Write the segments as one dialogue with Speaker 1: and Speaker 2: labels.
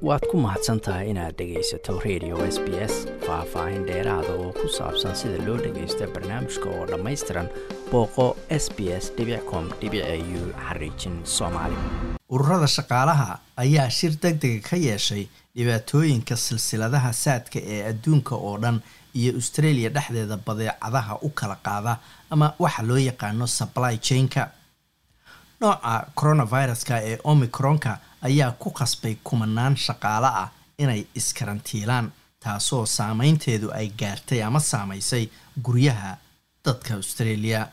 Speaker 1: Waad ku mahadsan tahay inaad dhegaysato Radio SBS. Faah-faahin dheeraada oo ku saabsan sida loo dhagaysto barnaamijka oo dhammaystiran, booqo sbs.com.au/soomaali.
Speaker 2: Ururada shaqaalaha ayaa shir deg dega ka yeeshay dhibaatooyinka silsiladaha saadka ee adduunka oo dhan iyo Australia dhexdeeda badeecadaha u kala qaada, ama waxa loo yaqaano supply chain-ka. Nooca coronaviruska ee Omicronka ayaa ku khasbay kumanaan shaqaale ah inay iskarantiilaan, taasoo saameynteedu ay gaartay ama saamaysay guryaha dadka Australia.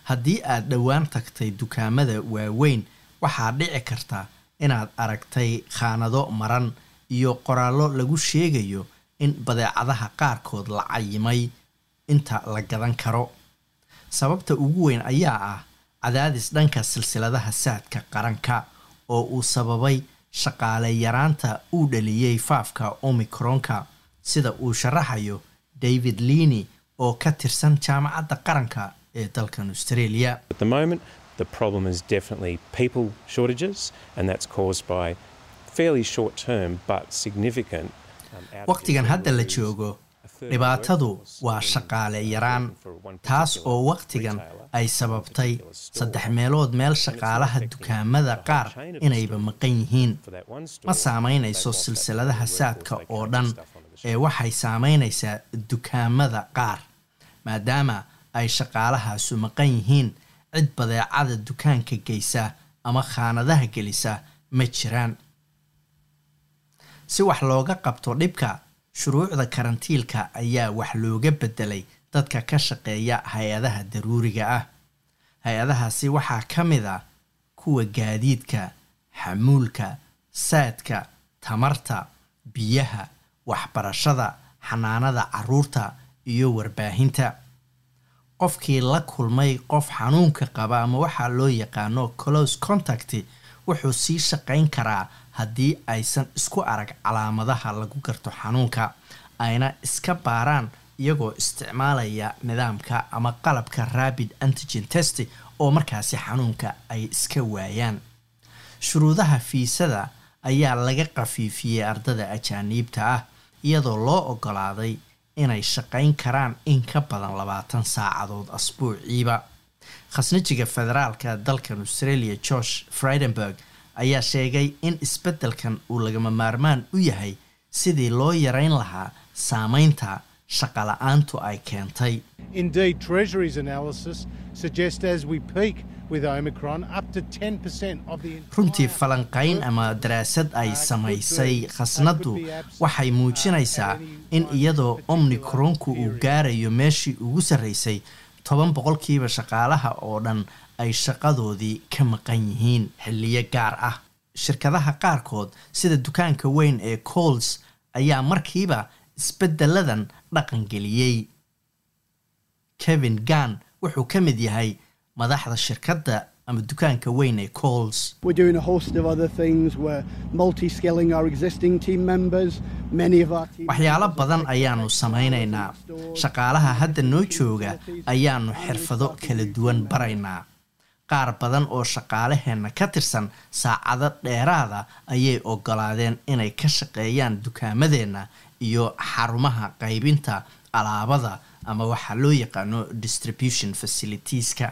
Speaker 2: Haddii aad dhowaan tagtay dukaamada waaweyn, waxaa dhici karta inaad aragtay khaanado maran iyo qoraallo lagu sheegayo in badeecadaha qaarkood la cayimay inta la gadan karo. Sababta ugu weyn ayaa ah cadaadis dhanka silsiladaha saadka qaranka oo uu sababay shaqaale yaraanta uu dhaliyey faafka Omicronka, sida uu sharaxayo David Leaney oo ka tirsan Jaamacadda Qaranka ee dalkan Australia.
Speaker 3: At the moment, the problem is definitely people shortages, and that's caused by fairly short term but significant.
Speaker 2: Waqtigan hadda la joogo, dhibaatadu waa shaqaale yaraan, taas oo waqtigan ay sababtay saddex meelood meel shaqaalaha dukaamada qaar inayba maqan yihiin. Ma saameynayso silsiladaha saadka oo dhan ee waxay saameynaysaa dukaamada qaar. Maadaama ay shaqaalahaasu maqan yihiin, cid badeecada dukaanka geysa ama khaanadaha gelisa ma jiraan. Si wax looga qabto dhibka, shuruucda karantiilka ayaa wax looga bedelay dadka ka shaqeeya hay-adaha daruuriga ah. Hay-adahaasi waxaa ka mid ah kuwa gaadiidka, xamuulka, saadka, tamarta, biyaha, waxbarashada, xanaanada caruurta iyo warbaahinta. Qofkii la kulmay qof xanuunka qaba, ama waxaa loo yaqaano close contact, wuxuu sii shaqayn karaa haddii aysan isku arag calaamadaha lagu garto xanuunka, ayna iska baaraan iyagoo isticmaalaya nidaamka ama qalabka rapid antigen test, oo markaasi xanuunka ay iska waayaan. Shuruudaha fiisada ayaa laga qafiifiyey ardada ajaaniibta ah, iyadoo loo ogolaaday inay shaqayn karaan in ka badan 20 saacadood asbuuciiba. Khasnajiga federaalka dalkan Australia, Josh Frydenberg, ayaa sheegay in isbeddelkan uu lagama maarmaan u yahay sidii loo yareyn lahaa saameynta shaqala-aantu ay keentay.
Speaker 4: Indeed, Treasury's analysis suggests as we peak with Omicron, up to 10% of the
Speaker 2: Runtii, falanqayn ama daraasad ay samaysay khasnaddu waxay muujinaysaa in iyadoo Omicronku uu gaarayo meeshii ugu sarreysay, 10% shaqaalaha oo dhan ay shaqadoodii ka maqan yihiin xilliyo gaar ah. Shirkadaha qaarkood, sida dukaanka weyn ee Coles, ayaa markiiba isbeddeladan dhaqangeliyey. Kevin Gunn wuxuu ka mid yahay madaxda shirkadda ama dukaanka weyn ee Coles.
Speaker 5: We're doing a host of other things. We're multi-skilling our existing team members. Many of our team
Speaker 2: Waxyaalo badan ayaanu samaynaynaa. Shaqaalaha hadda noo jooga ayaanu xirfado kala duwan baraynaa. Qaar badan oo shaqaalaheenna ka tirsan saacado dheeraada ayay ogolaadeen inay ka shaqeeyaan dukaamadeenna iyo xarumaha qaybinta alaabada, ama waxaa loo yaqaano distribution facilities-ka.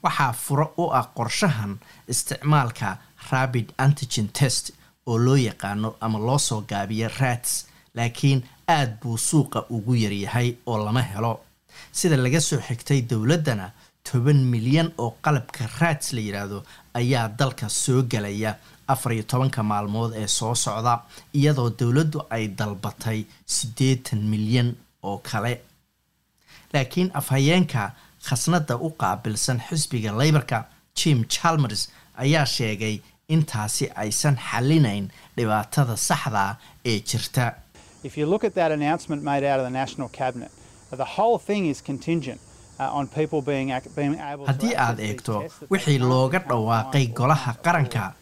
Speaker 2: Waxaa furo u ah qorshahan isticmaalka rapid antigen test oo loo yaqaano ama loo soo gaabiyo RATs, laakiin aad buu suuqa ugu yaryahay oo lama helo. Sida laga soo xigtay dowladdana, 10 milyan oo qalabka RATs la yidhaahdo ayaa dalka soo gelaya 14-ka maalmood ee soo socda, iyadoo dowladdu ay dalbatay 80 milyan oo kale. Laakiin afhayeenka khasnadda u qaabilsan xisbiga Labor-ka, Jim Chalmers, ayaa sheegay intaasi aysan xalinayn dhibaatada saxda ee jirta.
Speaker 6: If you look at that announcement made out of the National Cabinet, the whole thing is contingent on people being able to
Speaker 2: Haddii aad eegto wixii looga dhawaaqay golaha qaranka,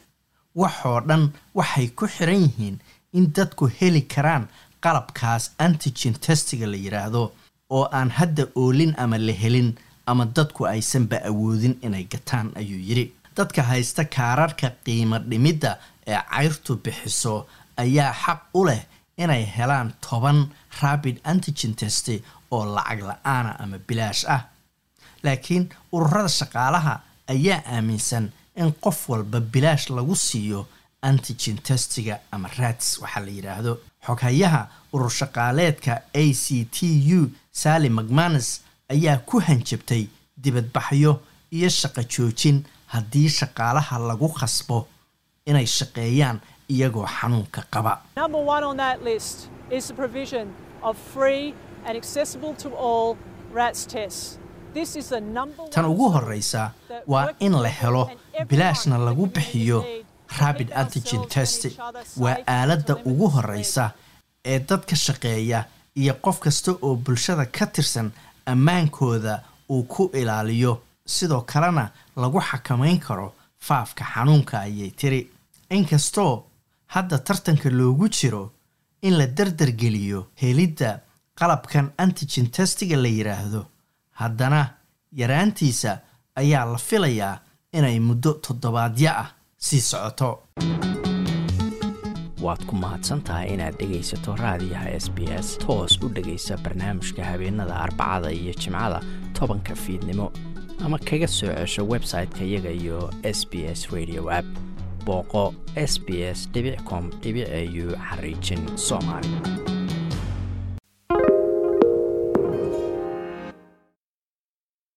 Speaker 2: waxoo dhan waxay ku xiran yihiin in dadku heli karaan qalabkaas antigen test-iga la yidhaahdo, oo aan hadda oolin ama la helin ama dadku aysanba awoodin inay gataan, ayuu yidhi. Dadka haysta kaararka qiimo dhimidda ee cayrtu bixiso ayaa xaq u leh inay helaan 10 rapid antigen test oo lacag la-aana ama bilaash ah, laakiin ururada shaqaalaha ayaa aaminsan in qof walba bilaash lagu siiyo antigen testiga ama RATs waxaa la yidhaahdo. Xoghayaha urur shaqaaleedka ACTU, Sally McManus, ayaa ku hanjabtay dibadbaxyo iyo shaqo joojin haddii shaqaalaha lagu khasbo inay shaqeeyaan iyagoo xanuunka qaba.
Speaker 7: Number one on that list is the provision of free and accessible to all RATs tests. This is the number
Speaker 2: Tan ugu horeysa waa in la helo bilaashna lagu bixiyo rapid antigen test. Waa aaladda ugu horeysa ee dadka shaqeeya iyo qof kasta oo bulshada ka tirsan ammaankooda uu ku ilaaliyo, sidoo kalena lagu xakameyn karo faafka xanuunka, ayay tiri. Inkastoo hadda tartanka loogu jiro in la dardargeliyo helidda qalabkan antigen testiga la yidhaahdo, haddana yaraantiisa ayaa la filayaa inay muddo toddobaadyo ah sii socoto.
Speaker 1: Waad ku mahadsantahay inaad dhegaysato raadiyaha SBS. Toos u dhegaysa barnaamijka habeenada Arbacada iyo Jimcada 10-ka fiidnimo, ama kaga soo cesho website-ka iyaga iyo SBS Radio app. Booqo sbs.com.au xariijin Soomaali.